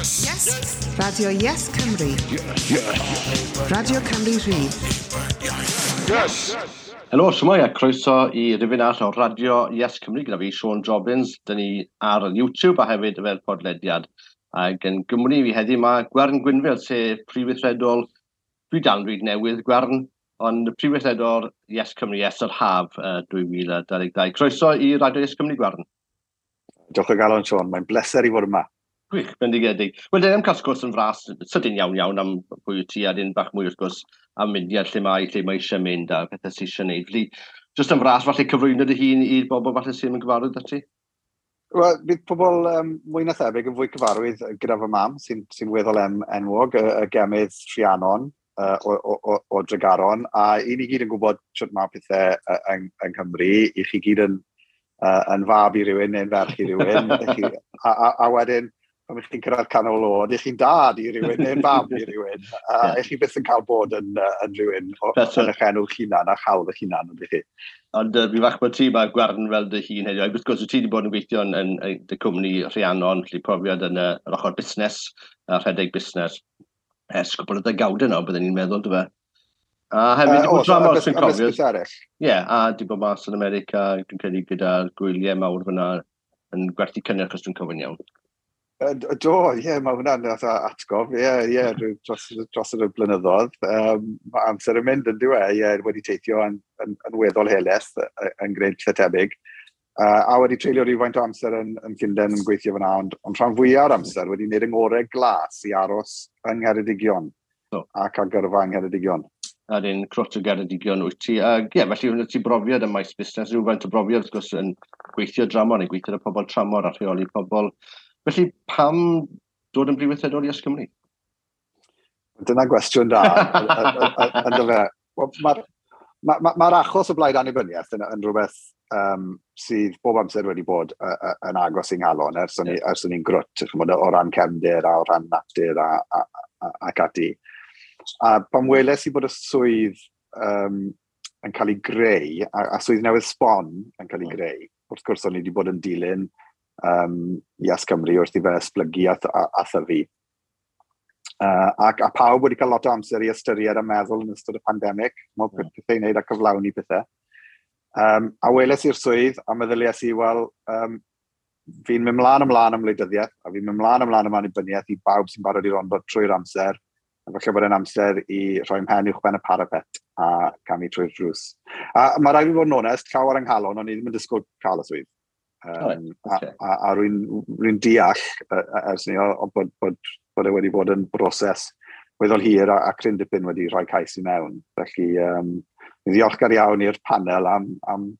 Yes! Yes! Radio Yes Cymru. Yes. Yes. Radio Cymru Rhydd. Yes! Helo, shwmae a croeso i rifyn arall o Radio Yes Cymru gyda fi, Siôn Jobbins. Dyn ni ar YouTube a hefyd fel podlediad. Ac yn Gymru fi heddiw mae Gwern Gwynfil, sef prif weithredol, dwi dal yn dweud newydd Gwern, ond prif weithredol Yes Cymru ers yr haf 2022. Croeso i Radio Yes Cymru, Gwern. Diolch o galon, Siôn. Mae'n bleser i fod yma. Gwych, bendigedig. Wel, dyn ni'n cael sgwrs yn fras, sydyn iawn iawn am pwy wyt ti a dyn bach mwy wrth gwrs am myndiad lle mae eisiau mynd a pethau sydd eisiau gwneud. Felly, jyst yn fras, falle cyflwyno dy hun i'r bobl falle sy'n yn gyfarwydd â ti? Wel, bydd pobl mwy na thebyg yn fwy cyfarwydd gyda fy mam, sy'n sy weddol enwog, y gemydd Rhiannon o Dregaron, a i ni gyd yn gwybod sut mae pethau yng Nghymru, i chi gyd yn fab i rywun neu'n ferch i rywun, chi, a wedyn, pan ych chi'n cyrraedd canol oed, ych chi'n dad i rywun neu'n fam i rywun. A ych chi byth yn cael bod yn rhywun yn eich enw eich hunan a chawl eich hunan, ydych chi. Ond fi fach bod ti mae Gwern fel dy hun heddiw. Wrth gwrs, ti wedi bod yn gweithio yn dy cwmni Rhiannon, felly profiad yn yr ochr busnes, a rhedeg busnes ers cwpl o ddegawdau nawr, byddwn ni'n meddwl, dy fe? A hefyd, di bod dramor, sy'n cofio. Ie, yeah, a di bod mas yn America, dwi'n credu gyda'r gwyliau mawr fyna yn gwerthu cynnyrch, os dwi'n cofio'n iawn. Do, ie, yeah, mae hwnna'n atgof, ie, yeah, ie, yeah, dros y blynyddoedd. Mae amser yn mynd yn diwe, ie, yeah, wedi teithio yn weddol helaeth yn gwneud lle tebyg. A wedi treulio rhywfaint o amser yn Llundain yn gweithio fyna, ond rhan fwyaf o'r amser wedi gwneud yng ngorau glas i aros yng Ngheredigion ac ar gyrfa yng Ngheredigion. A dyn crwt o Geredigion wyt ti. A ie, felly hwnna ti brofiad ym maes busnes, rhywfaint o brofiad wrth gwrs yn gweithio dramor neu gweithio â pobl tramor a rheoli pobl. Felly pam dod yn brif weithredol i Yes Cymru? Dyna gwestiwn da. Ynddo fe. Mae'r ma achos o blaid annibyniaeth yn rhywbeth sydd bob amser wedi bod yn agos i'n nghalon ers o'n i'n grwt, ch'mod, o ran cefndir a o ran natur ac ati. A pan weles i bod y swydd yn cael ei greu, a swydd newydd sbon yn cael ei greu, wrth gwrs o'n i wedi bod yn dilyn Yes Cymru wrth i fe esblygu a thyfu. Ac a pawb wedi cael lot o amser i ystyried a meddwl yn ystod y pandemig, mae pethau i wneud a cyflawni pethau. A weles i'r swydd a meddyliais i, wel, fi'n mynd mlaen ymlaen am wleidyddiaeth, a fi'n mynd mlaen ymlaen am annibyniaeth i bawb sy'n barod i rondo trwy'r amser, a falle bod e'n amser i rhoi mhen uwch ben y parapet a camu trwy'r drws. A mae rhaid i fi fod yn onest, llaw ar yng nghalon, o'n i ddim yn disgwyl cael y swydd. A rwy'n deall ers ni o bod e wedi bod yn broses weddol hir a cryn dipyn wedi rhoi cais i mewn. Felly, fi'n ddiolchgar iawn i'r panel am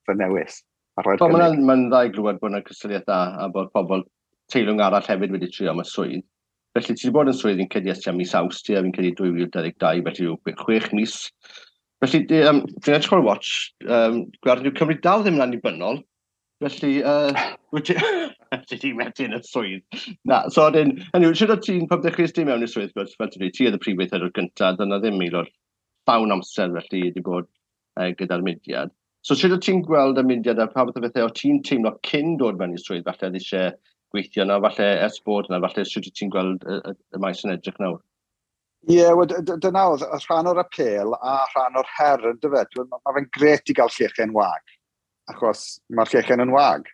fy newis. A rhoi'r cynnig. Mae'n ma dda i glywed bod yna cystadleuaeth dda a bod pobl teilwng arall hefyd wedi trio am y swydd. Felly ti wedi bod yn swydd fi'n credu ers tua mis Awst, a fi'n credu 2022, felly yw 6 mis. Felly, dwi'n edrych ar y watch, gweld yw Cymru dal ddim yn annibynnol, felly, wyt ti di methu yn y swydd. Na, so wedyn, hynny yw, siwr o ti'n, pan ddechreuais ti mewn i'r swydd, fel ti'n dweud, ti oedd y prif weithredwr gyntaf, dyna ddim aelod llawn amser felly wedi bod gyda'r mudiad. So sut o ti'n gweld y mudiad a pa fath o bethau o ti'n teimlo cyn dod mewn i'r swydd, falle oedd eisiau gweithio yna, falle ers bod yna, falle sut wyt ti'n gweld y maes yn edrych nawr? Ie, yeah, wel, dyna oedd y rhan o'r apêl a rhan o'r her yn dyfe. Mae fe'n gret i gael llechen wag, achos mae'r llechen yn wag.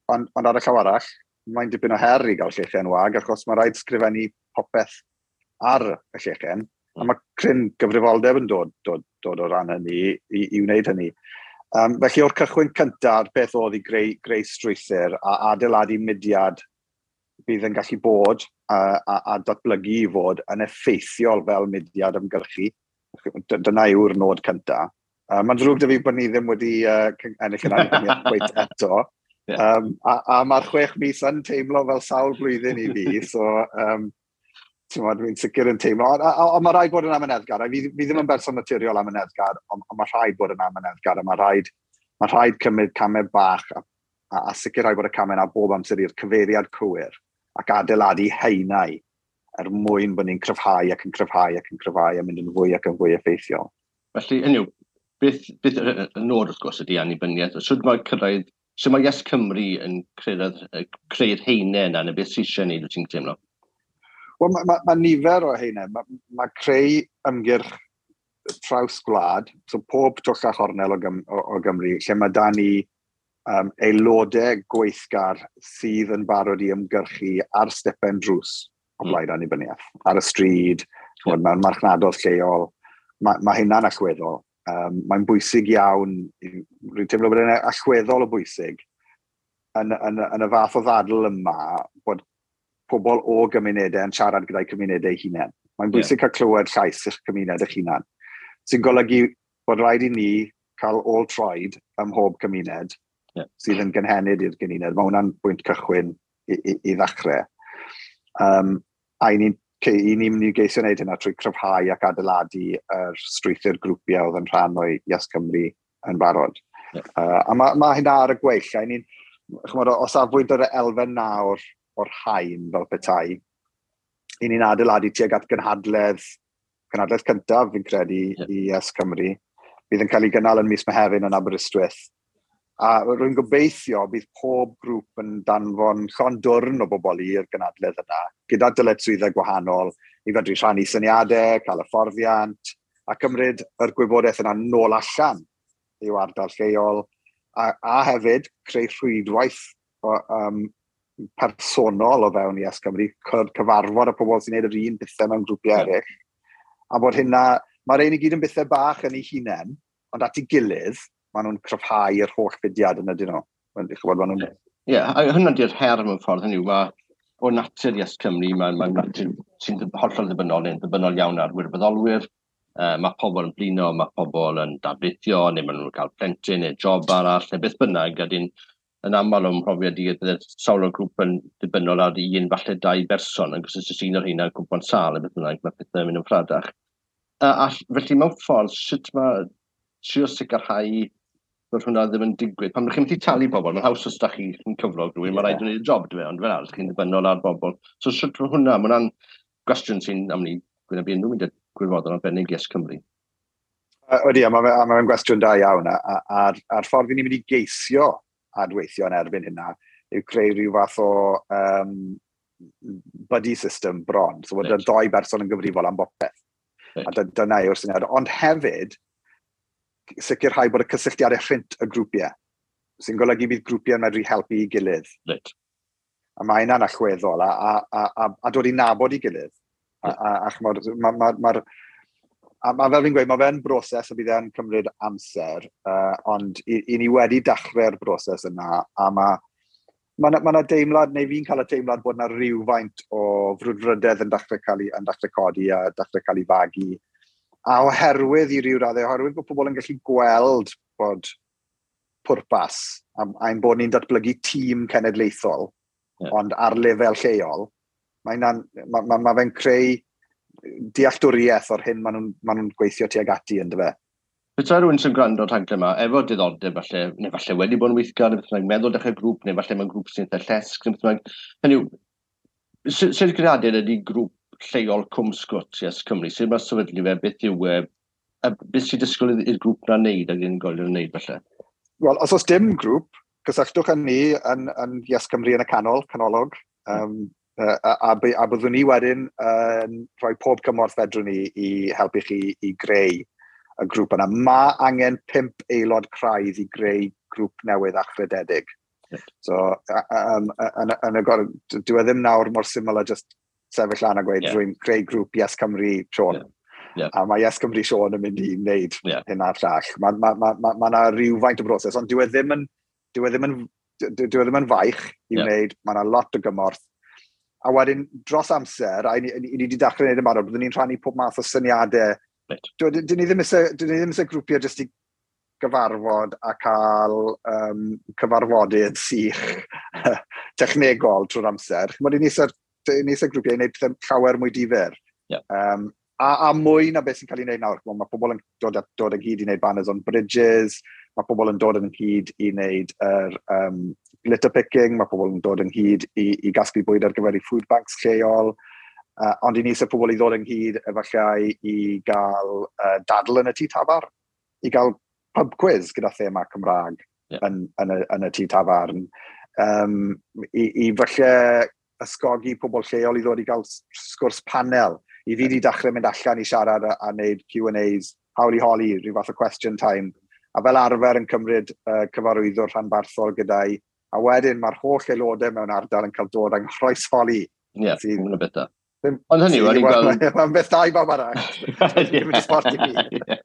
Ond ar y llaw arall, mae'n dipyn o her i gael llechen wag, achos mae rhaid sgrifennu popeth ar y llechen, a mae cryn gyfrifoldeb yn dod o ran hynny i wneud hynny. Felly o'r cychwyn cyntaf, beth oedd i greu strwythur a adeiladu mudiad bydd yn gallu bod a datblygu i fod yn effeithiol fel mudiad ymgyrchu. Dyna yw'r nod cyntaf. Mae'n ddrwg 'da fi bod ni ddim wedi ennill yn annibyniaeth cweit eto. A mae'r 6 mis yn teimlo fel sawl blwyddyn i fi, so ti'n dwi'n sicr yn teimlo. A mae rhaid bod yn amyneddgar. A fi ddim yn berson naturiol amyneddgar, ond mae rhaid bod yn amyneddgar, a mae rhaid cymryd camau bach a sicrhau bod y camau yna bob amser i'r cyfeiriad cywir ac adeiladu haenau er mwyn bod ni'n cryfhau ac yn cryfhau ac yn cryfhau a mynd yn fwy ac yn fwy effeithiol. Felly, hynny yw, beth y nod wrth gwrs ydy annibyniaeth. Sut mae cyrraedd, sut mae Yes Cymru yn creu'r haenau yna, neu beth sy'n eisiau gwneud, wyt ti'n teimlo? Wel, mae ma nifer o heina. Mae creu ymgyrch traws gwlad, so pob twll a chornel o Gymru, lle mae da ni aelodau gweithgar sydd yn barod i ymgyrchu ar stepen drws o blaid annibyniaeth, ar y stryd, ch'mod, mewn marchnadoedd lleol. Mae hynna'n allweddol. Mae'n bwysig iawn, rwy'n teimlo bod e'n allweddol o bwysig yn y fath o ddadl yma bod pobl o gymunedau yn siarad gyda'i cymunedau eu hunain. Mae'n bwysig cael clywed llais eich cymuned eich hunan, sy'n golygu bod rhaid i ni cael ôl troed ym mhob cymuned sydd yn gynhenid i'r gymuned. Mae hwnna'n bwynt cychwyn i ddechrau. A i ni'n mynd i geisio wneud hynna trwy cryfhau ac adeiladu yr strwythur grwpiau oedd yn rhan o Yes Cymru yn barod. A mae hynna ar y gweill. A i ni'n, ch'mod, o safbwynt yr elfen nawr o'r haen fel petai, i ni'n adeiladu tuag at gynhadledd cyntaf, fi'n credu, i Yes Cymru. Bydd yn cael ei gynnal yn mis Mehefin yn Aberystwyth. A rwy'n gobeithio bydd pob grŵp yn danfon llond dwrn o bobl i'r gynhadledd yna, gyda dyletswyddau gwahanol, i fedru rhannu syniadau, cael hyfforddiant, a cymryd yr gwybodaeth yna nôl allan i'w ardal lleol, a hefyd creu rhwydwaith personol o fewn Yes Cymru, cyfarfod y pobl sy'n gwneud yr un pethau mewn grwpiau eraill. A bod hynna, mae'r ein i gyd yn bethau bach yn ei hunain, ond at ei gilydd, maen nhw'n cryfhau yr holl fudiad yn ydyn nhw. Ch'mod, maen nhw'n. Ie, yeah, a hwnna di'r her mewn ffordd, hynny yw, mae o natur Yes Cymru, mae'n natur sy'n hollol ddibynnol, neu'n ddibynnol iawn ar wirfoddolwyr. Mae pobl yn blino, mae pobl yn darlithio, neu maen nhw'n cael plentyn neu job arall, neu beth bynnag, a dyn yn aml o'm mhrofiad i, bydde sawl o'r grŵp yn dibynnol ar un, falle dau berson, ac os oes un o'r rheina yn cwmpo'n sâl, neu beth bynnag, mae pethau'n mynd yn ffradach. A felly mewn ffordd, sut mae trio sicrhau bod hwnna ddim yn digwydd? Pan ydych chi'n methu talu bobl, mae'n haws os da chi'n cyflog rhywun, mae rhaid i wneud y job, dwi, ond fel arall, chi'n ddibynnol ar bobl. So sut mae hwnna, mae hwnna'n gwestiwn sy'n am ni gwynebu unrhyw mynd gwirfoddol arbennig Yes Cymru. Ydy, a mae ma gwestiwn da iawn, a'r ffordd i ni'n mynd i geisio adweithio yn erbyn hynna yw creu rhyw fath o buddy system bron. So bod y ddoi berson yn gyfrifol am bopeth. A dyna yw'r syniad. Ond hefyd, sicrhau bod y cysylltiadau rhynt y grwpiau, sy'n golygu bydd grwpiau'n medru helpu i gilydd. A mae hynna'n allweddol, a dod i nabod i gilydd. A ch'mod, a fel fi'n gweud, mae fe'n broses a bydd e'n cymryd amser, ond i ni wedi dechrau'r broses yna, a mae ma deimlad, neu fi'n cael y teimlad bod yna rhywfaint o frwdfrydedd yn dechrau codi a dechrau cael ei fagu. A oherwydd i ryw raddau, oherwydd bod pobl yn gallu gweld bod pwrpas, a'n bod ni'n datblygu tîm cenedlaethol, ond ar lefel lleol, ma fe'n creu dealltwriaeth o'r hyn maen nhw gweithio tuag ati yn dyfe. Petai rhywun sy'n gwrando ar rhaglen yma, efo diddordeb falle, neu falle wedi bod yn weithgar, neu beth bynnag, meddwl dechrau grŵp, neu falle mewn grŵp sy'n eitha llesg, neu beth bynnag. Hynny yw, sut greadiad ydy grŵp lleol Cwm Sgwt Yes Cymru? Sut mae sefydlu fe, beth yw e, a beth sy'n disgwyl i'r grŵp na'n neud ac unigolion yn neud falle? Wel, os oes dim grŵp, cysylltwch â ni yn Yes Cymru yn y canol, canolog, a byddwn ni wedyn yn rhoi pob cymorth fedrwn ni i helpu chi i greu y grŵp yna. Mae angen pump aelod craidd i greu grŵp newydd achrededig. So, yn y dyw e ddim nawr mor syml a just sefyll lan a gweud, "Rwy'n creu grŵp Yes Cymru Siôn." A mae Yes Cymru Siôn yn mynd i wneud hyn a'r llall. Mae ma 'na rhywfaint o broses, ond dyw e ddim yn faich i wneud, mae yna lot o gymorth. A wedyn, dros amser, a i ni wedi dechrau wneud yn barod, byddwn ni'n rhannu pob math o syniadau. Dyn ni ddim eisiau grwpiau jyst i gyfarfod a cael cyfarfodydd sych technegol trwy'r amser. Ch'mod, i ni eisiau grwpiau i wneud pethau llawer mwy difyr. A mwy na beth sy'n cael ei wneud nawr. Ch'mod, mae pobl yn dod ynghyd i wneud banners on bridges, mae pobl yn dod ynghyd i wneud yr litter picking, mae pobl yn dod ynghyd i gasglu bwyd ar gyfer eu food banks lleol. Ond i ni eisiau pobl i ddod ynghyd efallai i gael dadl yn y tŷ tafarn, i gael pub quiz gyda thema Cymraeg yn y tŷ tafarn. I falle ysgogi pobl lleol i ddod i gael sgwrs panel. I fi wedi dechrau mynd allan i siarad a wneud Q&As, hawl i holi, rhyw fath o question time. A fel arfer yn cymryd cyfarwyddwr rhanbarthol gyda'i. A wedyn mae'r holl aelodau mewn ardal yn cael dod yng nghroesholi. Ie, yeah, beth da. Ond hynny, o'n i'n gweld... Mae'n beth da i bawb arall. Ddim yn sport i fi.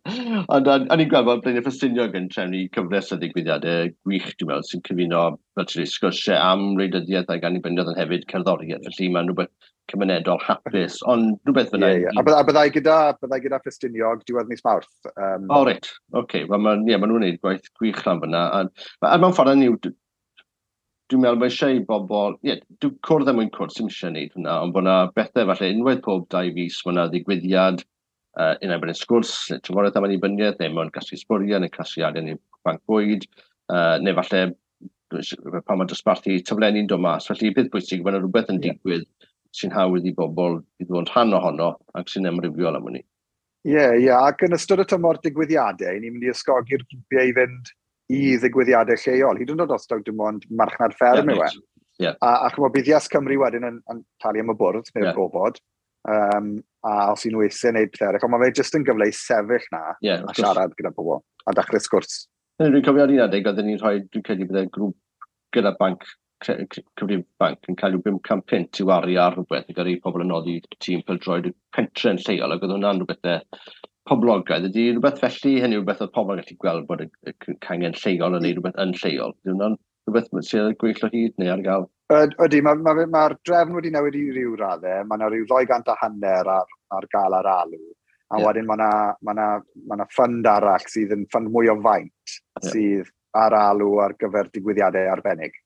Ond o'n i'n gweld bod Blaenau Ffestiniog yn trefnu cyfres o ddigwyddiadau gwych, dwi'n meddwl, sy'n cyfuno, fel ti'n dweud, sgyrsiau am wleidyddiaeth ac annibyniaeth ond hefyd cerddoriaeth. Felly mae'n rhywbeth cymunedol hapus, ond rhywbeth fyna... Yeah, yeah. A byddai gyda Ffestiniog diwedd mis Mawrth. O, reit. Oce. Okay. Wel, ma, yeah, ma nhw'n gwneud gwaith gwych lan fyna. A mewn ffordd hynny yw, dwi'n meddwl mae eisiau i bobl, ie, yeah, dwi'n cwrdd er mwyn cwrdd sy'n eisiau gwneud hwnna, ond bod yna bethau falle unwaith pob 2 fis, mae yna ddigwyddiad, unai bod yn sgwrs, neu trafodaeth am annibyniaeth, neu mewn casglu sbwriel, neu casglu arian i banc bwyd, neu falle pan mae dosbarthu taflenni'n dod mas. Felly, beth bwysig, mae yna rhywbeth yn digwydd sy'n hawdd i bobl i ddod yn rhan ohono ac sy'n amrywiol am hynny. Ie, ac yn ystod y tymor digwyddiadau, ni'n mynd i ysgogi'r grwpiau i fynd i ddigwyddiadau lleol, hyd yn oed os taw dim ond marchnad fferm yw e. A chymod, bydd Yes Cymru wedyn yn talu am y bwrdd neu'r gofod, a os y'n nhw eisiau gwneud pethau eraill, ond mae fe jyst yn gyfle i sefyll na a siarad gyda pobl a dechrau sgwrs. Dwi'n cofio ar un adeg, oedden ni'n rhoi, dwi'n credu bydde grŵp gyda banc, cyfrif banc yn cael rhyw 500 punt i wario ar rhywbeth i gyrru pobl yn noddi tîm pêl-droed y pentre'n lleol, ac oedd hwnna'n rhywbeth poblogaidd. Ydy rhywbeth felly, hynny rhywbeth oedd pobl yn gallu gweld bod y cangen lleol yn neud rhywbeth yn lleol. Ydy hwnna'n rhywbeth sydd ar gweill o hyd neu ar gael? Ydy, mae'r ma drefn wedi newid i ryw raddau. Mae yna rhyw 250 ar gael ar alw. A wedyn mae yna ma fund arall sydd yn fund mwy o faint sydd ar alw ar gyfer digwyddiadau arbennig.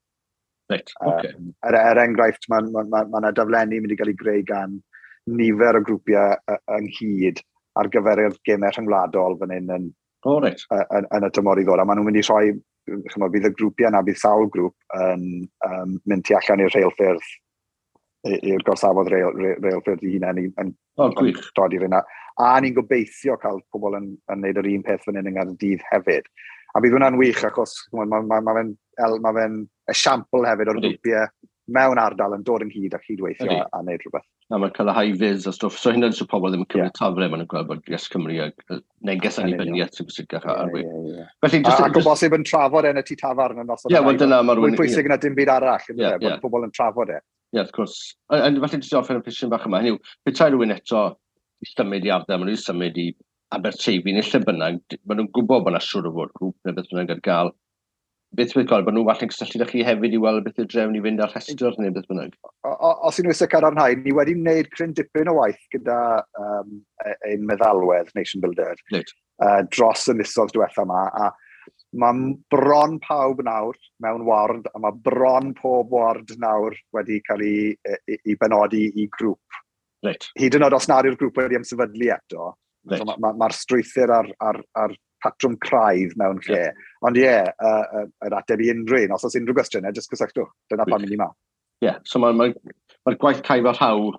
Reit, oce. Er enghraifft, mae ma yna daflenni mynd i gael ei greu gan nifer o grwpiau ynghyd ar gyfer y gemau rhyngwladol fan hyn yn, oh, reit. yn y tymor i ddod. A maen nhw'n mynd i rhoi, chymod, bydd y grwpiau yna, bydd sawl grŵp yn mynd tu allan i'r rheilffyrdd, i'r gorsafodd reilffyrdd i hunain yn, oh, gwych. Dod i'r yna. A ni'n gobeithio cael pobl yn neud yr un peth fan hyn yng Nghaerdydd hefyd. A bydd hwnna'n wych achos ma fe esiampl hefyd o'r grwpiau mewn ardal yn dod ynghyd a cydweithio a wneud rhywbeth. A mae'n cael y high vis a stwff. So hynny'n so pobl ddim yn cymryd tafle, maen nhw'n gweld bod Yes Cymru a neges annibyniaeth sy'n bwysicach ar we. Felly, just, ac o bosib yn trafod e yn y tŷ tafarn yn noson. Ie, wel dyna mae'r Mwy pwysig na dim byd arall, bod pobl yn trafod e. Ie, wrth gwrs. A felly jyst i orffen y cwestiwn bach yma, hynny yw, petai rhywun eto i symud i ardal, maen nhw'n symud i Aberteifi neu lle bynnag, maen nhw'n gwybod bod yna siŵr o fod grŵp neu beth bynnag ar gael. Beth bydd gweld, bod nhw falle'n cysylltu â chi hefyd i weld beth yw'r drefn i fynd ar rhestr neu beth bynnag? Os y'n nhw eisiau cadarnhau, ni wedi wneud cryn dipyn o waith gyda ein meddalwedd Nation Builder dros y misoedd diwetha yma. A mae bron pawb nawr mewn ward, a mae bron pob ward nawr wedi cael ei benodi i grŵp. Hyd yn oed os nad yw'r grŵp wedi ymsefydlu eto, so mae'r ma strwythur ar patrwm craidd mewn lle. Ond ie, yeah, yr ateb i unrhyw un, os oes unrhyw gwestiynau, jyst cysylltwch. Dyna pam i ni ma. Ie, yeah, so mae'r ma gwaith caib a rhaw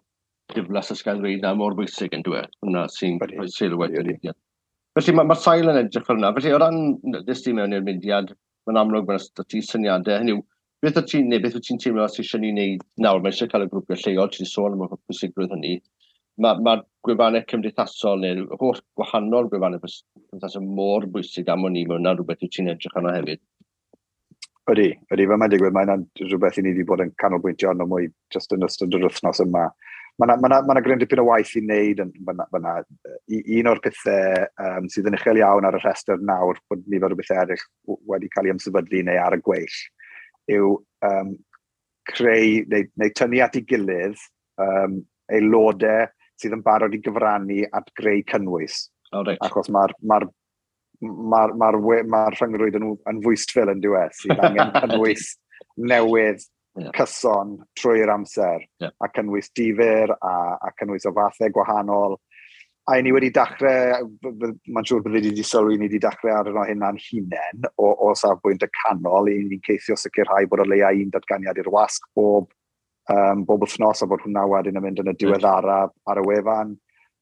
diflas ysgael ddweud na mor bwysig yn dweud. Hwna sy'n rhoi sylw wedyn. Felly mae'r ma sail yn edrych fel yna. Felly o ran ddys ti mewn i'r mudiad, mae'n amlwg mae'n ti syniadau. Hynny yw, beth wyt ti'n, neu beth wyt ti'n teimlo sydd eisiau ni wneud nawr? Mae eisiau cael y grwpiau lleol, ti wedi sôn am y pwysigrwydd hynny. Mae'r ma gwefannau cymdeithasol neu'r holl gwahanol gwefannau cymdeithasol mor bwysig am o'n i, mae hwnna'n rhywbeth wyt ti'n edrych arno hefyd. Ydy, fel mae'n digwydd, mae'n rhywbeth i ni wedi bod yn canolbwyntio arno mwy jyst yn ystod yr wythnos yma. Mae yna ma ma gryn dipyn o waith i wneud yn fyna. Un o'r pethau sydd yn uchel iawn ar y rhestr nawr, bod nifer o bethau eraill wedi cael ei ymsefydlu neu ar y gweill, yw creu neu tynnu at ei gilydd aelodau sydd yn barod i gyfrannu at greu cynnwys. Oh, right. Achos mae'r ma ma ma ma rhyngrwyd yn fwystfil yn diwedd sydd angen cynnwys newydd cyson trwy'r amser a cynnwys difyr a cynnwys o fathau gwahanol. A i ni wedi dechrau, mae'n siŵr bydde wedi sylwi, ni wedi dechrau ar yno hynna'n hunain o safbwynt y canol, i ni'n ceisio sicrhau bod o leia un datganiad i'r wasg bob wythnos a bod hwnna wedyn yn mynd yn y diweddara ar y wefan.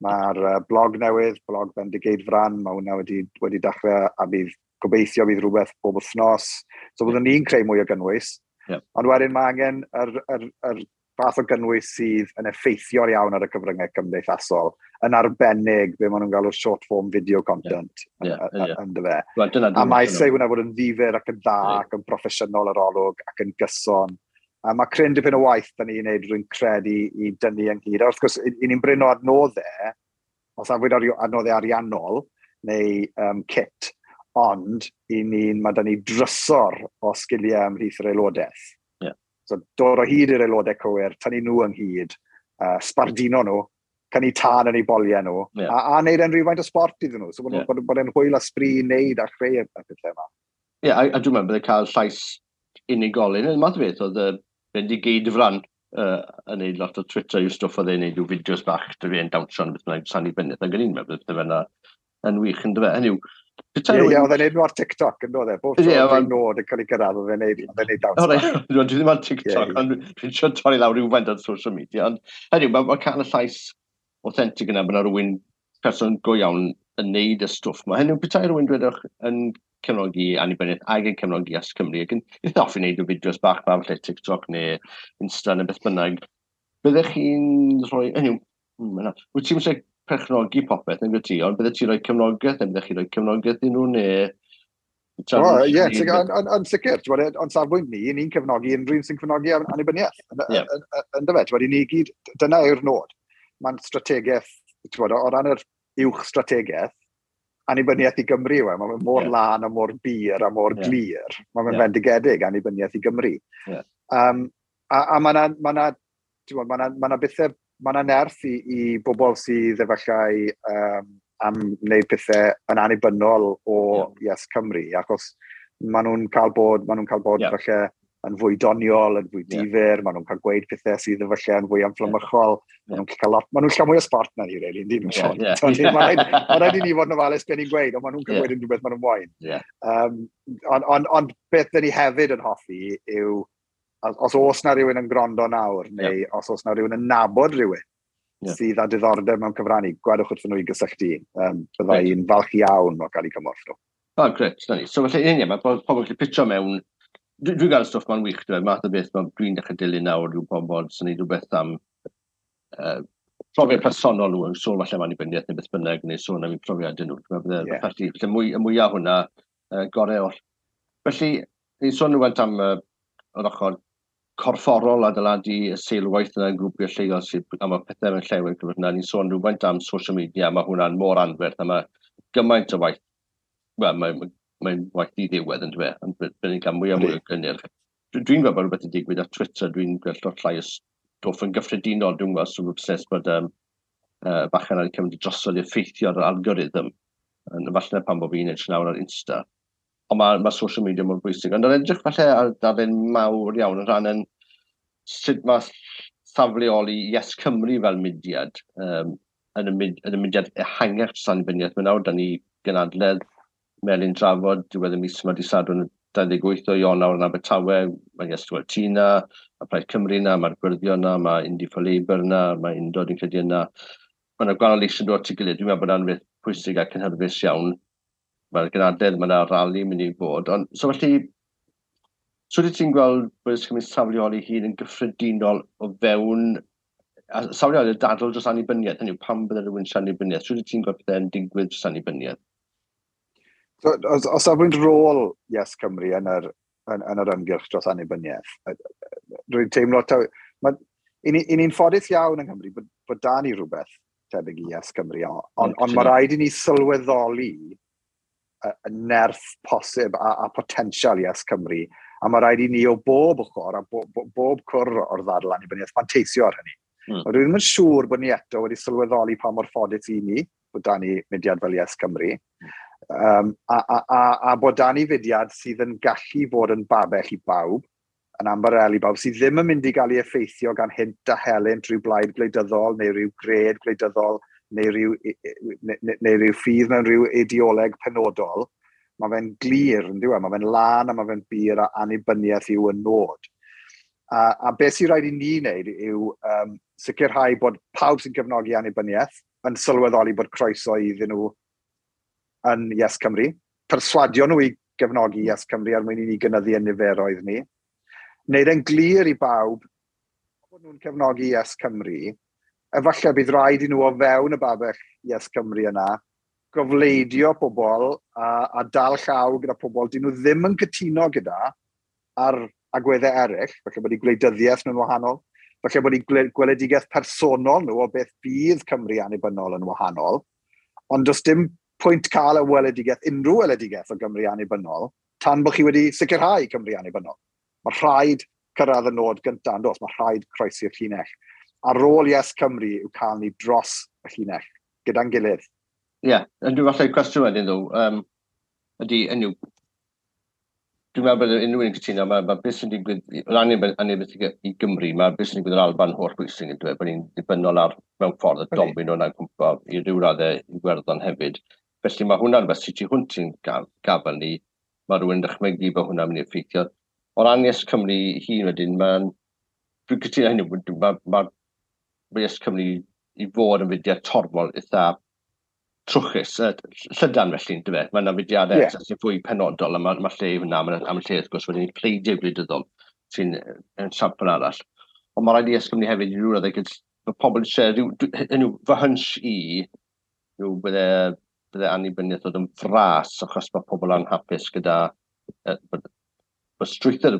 Mae'r blog newydd, blog Bendigeidfran, mae hwnna wedi dechrau a bydd gobeithio bydd rhywbeth bob wythnos. So byddwn ni'n creu mwy o gynnwys. Ond wedyn mae angen yr fath o gynnwys sydd yn effeithiol iawn ar y cyfryngau cymdeithasol, yn arbennig be maen nhw'n galw short form video content yn dyfe. Well, a mae eisiau hwnna fod yn ddifyr ac yn dda ac yn broffesiynol yr olwg ac yn gyson. A mae cryn dipyn o waith da ni'n neud, rwy'n credu, i dynnu ynghyd. A wrth gwrs, i ni'n brin o adnoddau, os afwyd adnoddau ariannol neu kit, ond i ni'n, mae da ni drysor o sgiliau ymhlith yr aelodaeth. So dod o hyd i'r aelodau cywir, tynnu nhw ynghyd, sbardino nhw, cynnu tân yn eu boliau nhw, a wneud e'n rhywfaint o sport iddyn nhw. So bod, bod e'n hwyl a sbri i wneud a chreu y pethau yma. Ie, yeah, a dwi'n meddwl bydde cael llais unigolyn. Yn math o beth, oedd Bendigeidfran yn neud lot o Twitter yw stwff oedd e'n neud yw fideos bach dy fi yn dawnsio yn beth bynnag annibyniaeth. Ac o'n i'n meddwl bydde fe'n yn wych yn dyfe. Hynny yw, Ie, oedd e'n neud nhw ar TikTok, yn dod e? Bob tro yeah, nod yn cael ei gyrraedd, oedd e'n neud dawns. O, reit, dwi ddim ar TikTok, ond dwi'n siarad torri lawr rhywfaint ar social media. Ond hynny yw, mae cael y llais authentic yna, bod yna rhywun person go iawn yn neud y stwff yma. Hynny yw, petai rhywun dwedwch yn cefnogi annibyniaeth ac yn cefnogi Yes Cymru, ac yn eitha hoffi wneud o fideos bach ma, falle TikTok neu Insta neu beth bynnag, byddech chi'n rhoi, hynny yw, wyt ti'n eisiau perchnogi popeth yn ti, ond byddech ti'n rhoi cefnogaeth, neu byddech chi'n rhoi cefnogaeth i nhw, neu... O, ie, yn sicr, ond safbwynt ni, ni'n cefnogi unrhyw un sy'n cefnogi annibyniaeth. Yn dyfe, ti'n ni gyd, dyna yw'r nod. Mae'n strategaeth, ti'n o ran yr uwch strategaeth, annibyniaeth i Gymru yw e. Mae'n mor lân a mor bur a mor glir. Mae'n fendigedig annibyniaeth i Gymru. A mae yna ma ma bethau, mae yna nerth i bobl sydd efallai am wneud pethau yn annibynnol o Yes Cymru, achos maen nhw'n cael bod, maen nhw'n cael bod falle yn fwy doniol, yn fwy difyr, maen nhw'n cael gweud pethau sydd efallai yn fwy amflymychol, maen nhw'n cael lot, maen nhw'n cael mwy o sport na ni, really, yndyn nhw. Mae rhaid i ni fod yn ofalus beth ni'n gweud, ond maen nhw'n cael gweud unrhyw beth maen nhw'n moyn. Ond beth dyn ni hefyd yn hoffi yw, os oes na rhywun yn gwrando nawr, neu os oes na rhywun yn nabod rhywun sydd â diddordeb mewn cyfrannu, gwedwch wrthyn nhw i gysylltu. Bydda i'n falch iawn o gael eu cymorth nhw. O, grêt, na ni. So felly, ie, mae pobl yn gallu pitcho mewn. Dwi'n gael stwff ma'n wych, dwi'n math o beth dwi'n dechrau dilyn nawr yw pobl sy'n neud rhywbeth am profiad personol nhw, yn sôn falle am annibyniaeth neu beth bynnag, neu sôn am eu profiadau nhw. Dwi'n meddwl bydde felly, felly mwy, y mwyaf hwnna, gorau oll. Felly, ni'n sôn rhywfaint am yr ochr corfforol adeiladu y seilwaith yna yn grwpiau lleol sydd, a mae pethau mewn llewyr gyfer hwnna. Ni'n sôn rhywfaint am social media, mae hwnna'n mor anferth, a mae gymaint o waith, wel, mae'n mae waith diddiwedd yn dweud, ond byddwn ni'n cael mwy a mwy o gynnyrch. Dwi'n gweld bod rhywbeth yn digwydd ar Twitter, dwi'n gweld lot llai o stwff yn gyffredinol, dwi'n gweld sy'n obsessed bod bachan ar cymryd drosodd i effeithio ar yr algorithm, yn falle pan bod fi'n edrych nawr ar Insta. Ond mae social media mor bwysig. Ond yn edrych falle ar darlun mawr iawn yn rhan yn sut mae safleoli Yes Cymru fel mudiad, yn y mudiad ehangach dros annibyniaeth. Mae nawr da ni gynadledd Melin Drafod, diwedd y mis yma, dydd Sadwrn 28 o Ionawr yn Abertawe, mae Yes T na, mae Plaid Cymru na, mae'r Gwyrddion na, mae Indie for Labour na, mae Undod yn credu yna. Mae yna gwahanol eisiau dod at ei gilydd. Dwi'n meddwl bod yna'n beth pwysig a cynhyrfus iawn. Mae'r gynadledd, mae yna rali mynd i fod. Ond, so felly, so wyt ti'n gweld bod Yes Cymru safleoli hun yn gyffredinol o fewn, a safleoli y dadl dros annibyniaeth, hynny yw, pam bydde rhywun eisiau annibyniaeth? So wyt ti'n gweld pethau'n digwydd dros annibyniaeth? So, os safbwynt rôl Yes Cymru yn yr ymgyrch dros annibyniaeth, rwy'n teimlo, i ni'n ffodus iawn yng Nghymru bod da ni rhywbeth tebyg i Yes Cymru, ond mae rhaid i ni sylweddoli y nerth posib a potensial Yes Cymru, a mae rhaid i ni o bob ochr a bob cwr o'r ddadl annibyniaeth manteisio ar hynny. Ond dwi ddim yn siŵr bod ni eto wedi sylweddoli pa mor ffodus i ni bod da ni mudiad fel Yes Cymru, a bod da ni fudiad sydd yn gallu fod yn babell i bawb, yn ambarel i bawb, sydd ddim yn mynd i gael ei effeithio gan hynt a helynt rhyw blaid gwleidyddol neu rhyw gred gwleidyddol neu rhyw ffydd mewn rhyw ideoleg penodol. Mae fe'n glir, yn dyw e? Mae fe'n lân a mae fe'n bur a annibyniaeth yw y nod. A beth sy'n rhaid i ni wneud yw sicrhau bod pawb sy'n cefnogi annibyniaeth yn sylweddoli bod croeso iddyn nhw yn Yes Cymru, perswadio nhw i gefnogi Yes Cymru er mwyn i ni gynyddu y niferoedd ni. Wneud e'n glir i bawb, Bod nhw'n cefnogi Yes Cymru, efallai bydd rhaid i nhw o fewn y babell Yes Cymru yna gofleidio pobl a dal llaw gyda pobl dyn nhw ddim yn cytuno gyda ar agweddau eraill, falle bod eu gwleidyddiaeth nhw'n wahanol, falle bod eu gweledigaeth personol nhw o beth bydd Cymru annibynnol yn wahanol, ond does dim pwynt cael y weledigaeth, unrhyw weledigaeth o Gymru annibynnol, tan bod chi wedi sicrhau Cymru annibynnol. Mae rhaid cyrraedd y nod gyntaf, yn does? Mae rhaid croesi'r llinell. A rôl Yes Cymru yw cael ni dros y llinell, gyda'n gilydd. Ie, yeah, dwi'n falle cwestiwn wedyn ddo, ydy, enw, dwi'n meddwl bod unrhyw un yn cytuno, mae beth sy'n digwydd, o ran annibyniaeth i Gymru, mae beth sy'n digwydd yn Alban holl bwysig yn dweud bod ni'n dibynnol ar mewn ffordd y domino yna'n cwmpa i ryw raddau i Iwerddon hefyd. Felly mae hwnna'n rhywbeth sy'n tu hwnt i'n gafel ni, mae rhywun yn dychmygu bod hwnna'n mynd i effeithio. O ran Yes Cymru hun wedyn, mae'n... Dwi'n cytuno hynny, mae Yes Cymru i fod yn fudiad torfol eitha trwchus, llydan felly, yn dyfe? Mae yna fudiadau sy'n fwy penodol, a mae lle i hwnna, mae yna lle wrth gwrs wedyn i pleidiau gwleidyddol sy'n yn sampl arall. Ond mae rhaid i Yes Cymru hefyd i ryw raddau, mae pobl eisiau, hynny yw, fy hunch i yw bydde annibyniaeth ddod yn fras achos mae pobl anhapus gyda bod strwythur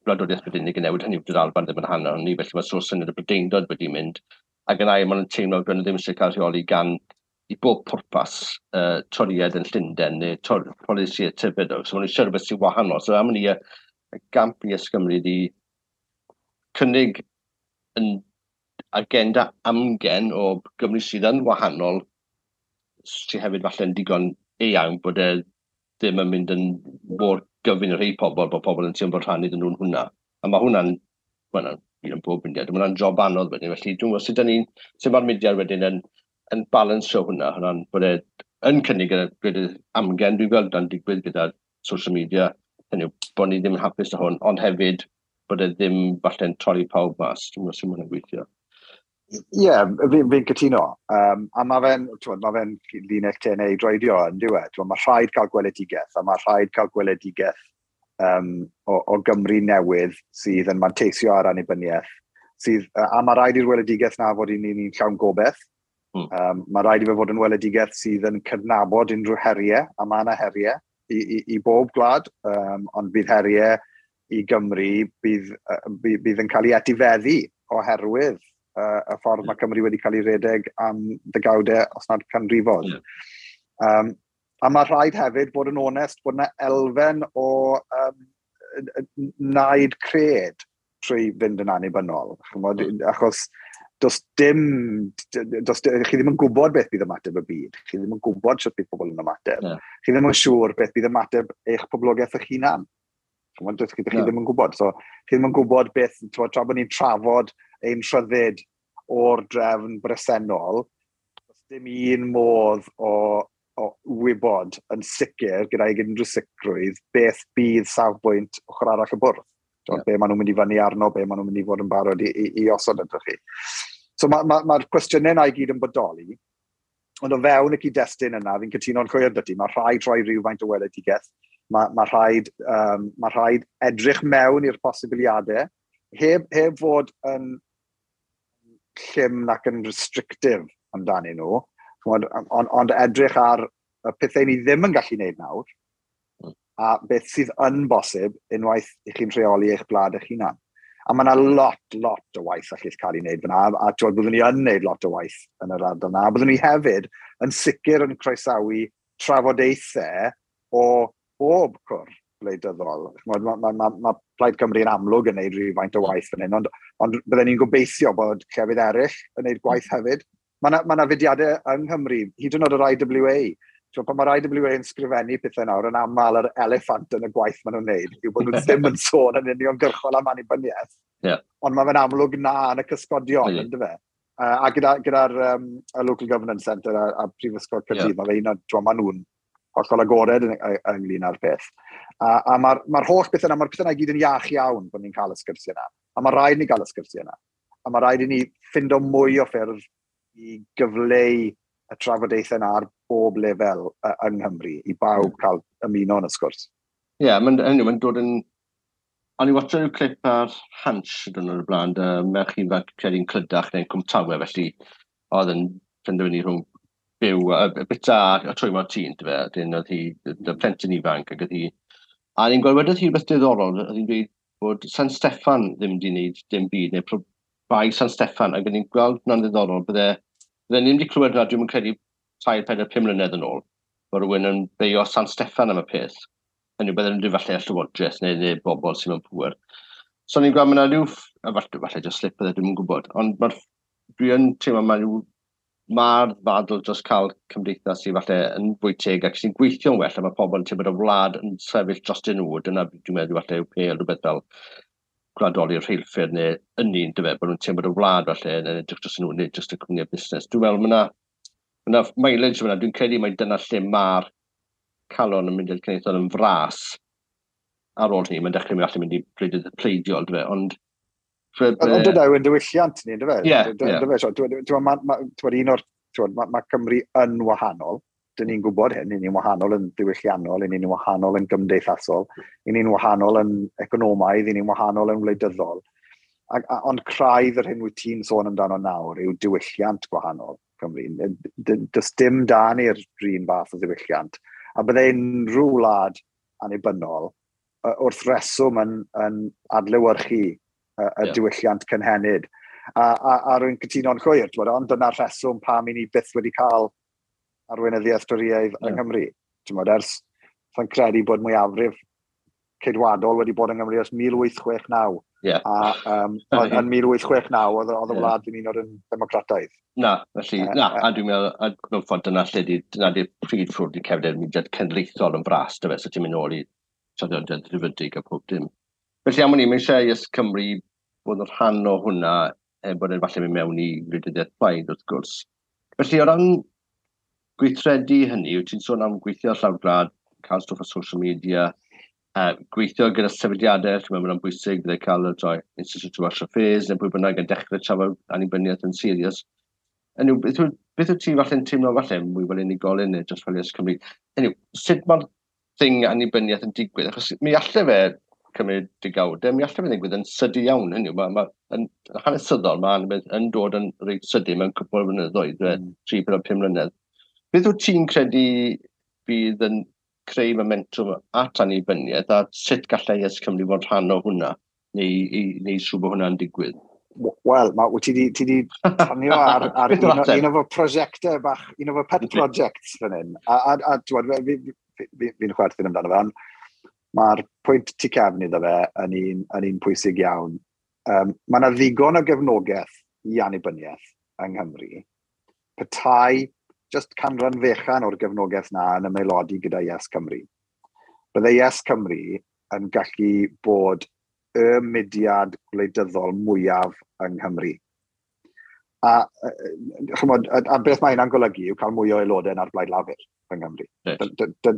gwladwriaeth Brydeinig yn newid, hynny yw, dy'r Alban ddim yn rhan ohoni, felly mae sort of syniad y Brydeindod wedi mynd, ac yn ail, maen nhw'n teimlo bod nhw ddim eisiau cael rheoli gan i bob pwrpas Torïaid yn Llundain neu polisi tebyg. So maen nhw eisiau rhywbeth sy'n wahanol. So am ni y gamp i Yes Cymru ydi cynnig yn agenda amgen o Gymru sydd yn wahanol, sydd hefyd falle'n digon eang bod e ddim yn mynd yn mor gyfun i rhai pobl, bod pobl yn teimlo bod rhan iddyn nhw'n hwnna. A mae hwnna'n, well, un yn bob mudiad, mae hwnna'n job anodd wedyn, felly dwi'n gwybod sut ni'n, sut mae'r mudiad wedyn yn balansio hwnna, hwnna'n bod e yn cynnig y gwledydd amgen, dwi'n gweld dan digwydd gyda social media, hynny yw, bod ni ddim yn hapus â hwn, ond hefyd bod e ddim falle'n torri pawb mas. Dwi'n gwybod sut mae hwnna'n gweithio. Ie, yeah, fi'n cytuno. A mae fe'n ma fe linell tenau i droedio yn diwedd. Mae rhaid cael gweledigaeth, a mae rhaid cael gweledigaeth o Gymru newydd sydd yn manteisio ar annibyniaeth. Sydd, a mae rhaid i'r weledigaeth na fod i ni'n llawn gobeith. Mae rhaid i fe fod yn weledigaeth sydd yn cydnabod unrhyw heriau, a mae yna heriau i bob gwlad, ond bydd heriau i Gymru bydd yn cael ei etifeddu oherwydd y ffordd mae Cymru wedi cael ei redeg am ddegawdau, os nad canrifoedd. A mae rhaid hefyd bod yn onest bod yna elfen o naid cred trwy fynd yn annibynnol. Ch'mod, achos does dim, does, chi ddim yn gwybod beth bydd ymateb y byd. Chi ddim yn gwybod sut bydd pobl yn ymateb. Chi ddim yn siŵr beth bydd ymateb eich poblogaeth eich hunan. Ch'mod, chi ddim yn gwybod. So, chi ddim yn gwybod beth, t'mod, tra bod ni'n trafod ein rhyddid o'r drefn bresennol, does dim un modd o wybod yn sicr, gyda'i unrhyw sicrwydd, beth bydd safbwynt ochr arall y bwrdd. Be maen nhw'n mynd i fyny arno, be maen nhw'n mynd i fod yn barod i osod ydych chi. So mae'r ma cwestiynau yna i gyd yn bodoli, ond o fewn y cyd-destun yna, fi'n cytuno'n llwyr 'da ti, mae rhaid rhoi rhywfaint o weledigaeth, mae rhaid edrych mewn i'r posibiliadau, heb fod yn llym nac yn restrictive amdanyn nhw, ch'mod, ond edrych ar y pethau ni ddim yn gallu gwneud nawr, a beth sydd yn bosib unwaith i chi'n rheoli eich gwlad eich hunan. A mae yna lot, lot o waith allith cael ei wneud fyna, a t'wod, byddwn ni yn wneud lot o waith yn yr ardal yna. A byddwn ni hefyd yn sicr yn croesawu trafodaethau o bob cwr gwleidyddol. Ch'mod, ma Plaid Cymru yn amlwg yn wneud rhywfaint o waith fan hyn, ond bydden ni'n gobeithio bod llefydd eraill yn wneud gwaith hefyd. Mae yna ma fudiadau yng Nghymru, hyd yn oed yr IWA. T'wod, pan mae'r IWA yn sgrifennu pethau nawr, yn aml yr eliffant yn y gwaith maen nhw'n wneud, yw bod nhw ddim yn sôn yn uniongyrchol am annibyniaeth. Ond mae fe'n amlwg na yn y cysgodion, yndyfe? A gyda'r y Local Governance Centre a Prifysgol Caerdydd, mae fe un o, t'wod, maen nhw'n hollol agored ynglyn â'r peth. A mae'r holl beth yna, mae'r peth yna i gyd yn iach iawn bod ni'n cael y sgyrsiau yna. A mae rhaid ni gael y sgyrsiau yna. A mae rhaid i ni ffindo mwy o ffyrdd i gyfleu y trafodaethau yna ar bob lefel yng Nghymru, i bawb cael ymuno yn y sgwrs. Ie, yeah, mae'n dod yn O'n i watcho rhyw clip ar Hansh dyn nhw'n y blaen, merch ifanc credu'n Clydach neu'n Cwmtawe, felly oedd yn penderfynu rhwng byw, bita a trwymo tîn, dy fe, dyn oedd hi, y plentyn ifanc, ac oedd hi, a ni'n gweld wedodd hi rhywbeth diddorol, oedd hi'n dweud bod San Steffan ddim wedi gwneud dim byd, neu bai San Steffan, ac o'n i'n gweld hwnna'n ddiddorol, bydde ddim wedi clywed hwnna, dwi'n credu 3, 4, 5 mlynedd yn ôl, bod rhywun yn beio San Steffan am y peth. Hynny yw, bydden nhw'n falle y llywodraeth neu bobl sy'n mewn pŵer. So ni'n gweld mae yna rhyw, a falle just slip bydde, dwi'm yn gwybod, ond dwi yn teimlo mae rhyw, mae'r ddadl dros cael cymdeithas sydd falle yn fwy teg ac sy'n gweithio'n well, a mae pobl yn teimlo bod y wlad yn sefyll dros nhw, dyna dwi'n meddwl falle yw pêl rhywbeth fel gwladoli'r rheilffyrdd neu ynni, yndyfe, bod nhw'n teimlo bod y wlad falle yn edrych dros nhw, nid jyst y cwmnïau busnes. Dwi'n meddwl mae yna mileage fyna, dwi'n credu mai dyna lle mae'r calon yn mynd i'r cenedlaethol yn fras ar ôl hynny, mae'n dechrau mynd allan mynd i pleidiol, dyfe, ond... Ond dyna yw'n diwylliant ni, dyfe? Ie, Mae Cymru yn wahanol, dyn ni'n gwybod hyn, ni'n wahanol yn diwylliannol, ni'n wahanol yn gymdeithasol, ni'n wahanol yn economaidd, ni'n wahanol yn wleidyddol. Ond craidd yr hyn wyt ti'n sôn amdano nawr yw diwylliant gwahanol Cymru. Does dim da ni'r un fath o ddiwylliant. A bydde unrhyw wlad annibynnol wrth reswm yn adlewyrchu y diwylliant cynhenid. A rwy'n cytuno'n llwyr, ond dyna'r rheswm pam i ni byth wedi cael arweinyddiaeth Dorïaidd yng Nghymru. Ers, sa'n credu bod mwyafrif ceidwadol wedi bod yng Nghymru ers 1869. Yeah. A yn 1869 oedd y wlad ddim un o'r yn democrataidd. Na, felly, na, a dwi'n meddwl, a mewn ffordd dyna lle di, dyna di'r prif ffrwd i cefndir mudiad cenedlaethol yn fras, dyfe, so ti'n mynd nôl i traddodiad Rhyfydig a pob dim. Felly am wn i, mae eisiau Yes Cymru bod yn rhan o hwnna, er bod e'n falle mynd mewn i wleidyddiaeth plaid, wrth gwrs. Felly, o ran gweithredu hynny, wyt ti'n sôn am gweithio ar llawr gwlad, cael stwff ar social media, gweithio gyda sefydliadau, dwi'n meddwl mae'n bwysig, bydde cael y droi Institute of Welsh Affairs neu pwy bynnag yn dechrau trafod annibyniaeth yn serious. Hynny yw, beth wyt ti falle'n teimlo falle mwy fel unigolyn neu dros fel Yes Cymru? Hynny yw, sut mae'r thing annibyniaeth yn digwydd? Achos mi allai fe cymryd degawdau, mi allai fe ddigwydd yn sydyn iawn. Hynny yw, yn hanesyddol, mae annibyniaeth yn dod yn reit sydyn mewn cwpl o flynyddoedd, 3, 4, 5 mlynedd. Beth wyt ti'n credu bydd yn creu momentum at annibyniaeth a sut gallai Yes Cymru fod rhan o hwnna neu siŵr bod hwnna'n digwydd? Wel, wyt ti di tanio ar Beth yw'r ateb? un o fy prosiectau bach, un o fy pet projects fan hyn. A fi'n chwerthin amdano fe, ond mae'r pwynt tu cefn iddo fe yn un pwysig iawn. Mae yna ddigon o gefnogaeth i annibyniaeth yng Nghymru. Petai just canran fechan o'r gefnogaeth na yn ymaelodi gyda Yes Cymru. Bydde Yes Cymru yn gallu bod y mudiad gwleidyddol mwyaf yng Nghymru. A beth mae hynna'n golygu yw cael mwy o aelodau na'r Blaid Lafur yng Nghymru.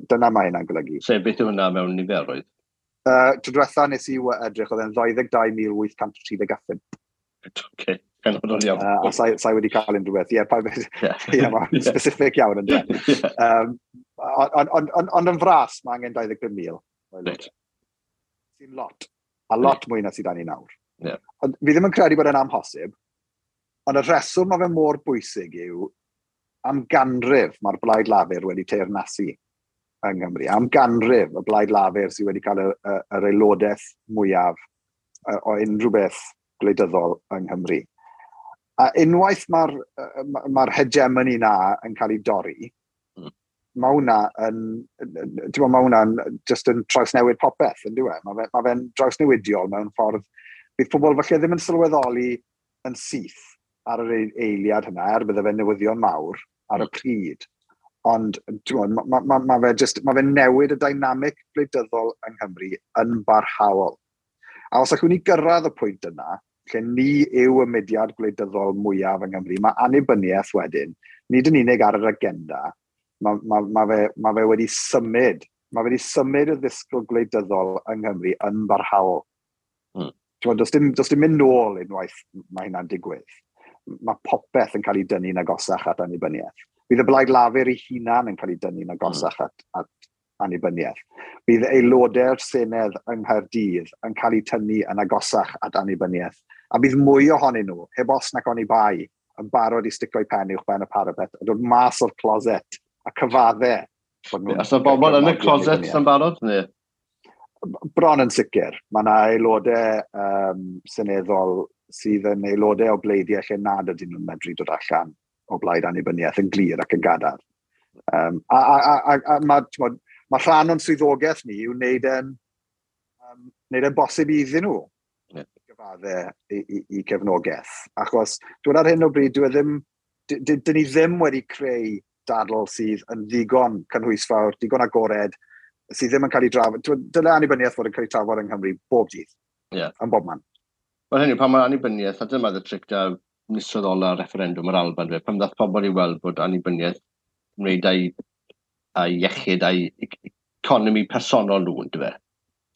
Dyna mae hynna'n golygu. Sef beth yw hwnna mewn niferoedd? Tro diwetha nes i edrych, oedd e'n 22,835. Oce, penodol iawn. A sai wedi cael unrhyw beth. Ie, Ie, mae'n specific iawn, ynde. Ond yn fras, mae angen 25,000. Sy'n lot. A lot mwy na sydd â ni nawr. Ond fi ddim yn credu bod e'n amhosib, ond y rheswm mae fe mor bwysig yw am ganrif mae'r Blaid Lafur wedi teyrnasu yng Nghymru. Am ganrif y Blaid Lafur sydd wedi cael yr aelodaeth mwyaf o unrhyw beth gwleidyddol yng Nghymru. A unwaith mae'r hegemony na yn cael ei dorri, mae hwnna yn, ti'n gwbod, mae hwnna'n just yn trawsnewid popeth, yn dyw e? Mae fe'n drawsnewidiol mewn ffordd. Bydd pobl falle ddim yn sylweddoli yn syth ar yr eiliad hynna, er bydde fe'n newyddion mawr ar y pryd. Ond, ti'n gwbod, ma fe'n newid y dynamic gwleidyddol yng Nghymru yn barhaol. A os allwn ni gyrraedd y pwynt yna, lle ni yw y mudiad gwleidyddol mwyaf yng Nghymru, mae annibyniaeth wedyn, nid yn unig ar yr agenda, ma fe wedi symud, ma fe wedi symud y ddisgwyl gwleidyddol yng Nghymru yn barhaol. Ti'n gwbod, does dim mynd nôl unwaith mae hynna'n digwydd. Mae popeth yn cael ei dynnu'n agosach at annibyniaeth. Bydd y Blaid Lafur ei hunan yn cael ei dynnu'n agosach at annibyniaeth. Bydd aelodau'r Senedd yng Nghaerdydd yn cael eu tynnu yn agosach at annibyniaeth. A bydd mwy ohonyn nhw, heb os nac oni bai, yn barod i stico'u pen uwch ben y parapet a dod mas o'r closet a cyfadde. Os yna bobl yn y closet yn barod? Neu? Bron yn sicr. Mae yna aelodau seneddol sydd yn aelodau o bleidiau lle nad ydyn nhw'n medru dod allan o blaid annibyniaeth yn glir ac yn gadarn. A mae rhan o'n swyddogaeth ni yw wneud e'n bosib iddyn nhw gyfadde i cefnogaeth. Achos dwi'n ar hyn o bryd, dwi ddim, dyn ni ddim wedi creu dadl sydd yn ddigon cynhwysfawr, digon agored, sydd ddim yn cael ei drafod. Dyle annibyniaeth fod yn cael ei trafod yng Nghymru bob dydd. Yn bob man. Wel hynny, pan mae annibyniaeth, a dyma y tric da misoedd ola referendwm yr Alban, fe, pan ddath pobl i weld bod annibyniaeth wneud a'i iechyd a'i economi personol nhw, ynddo fe.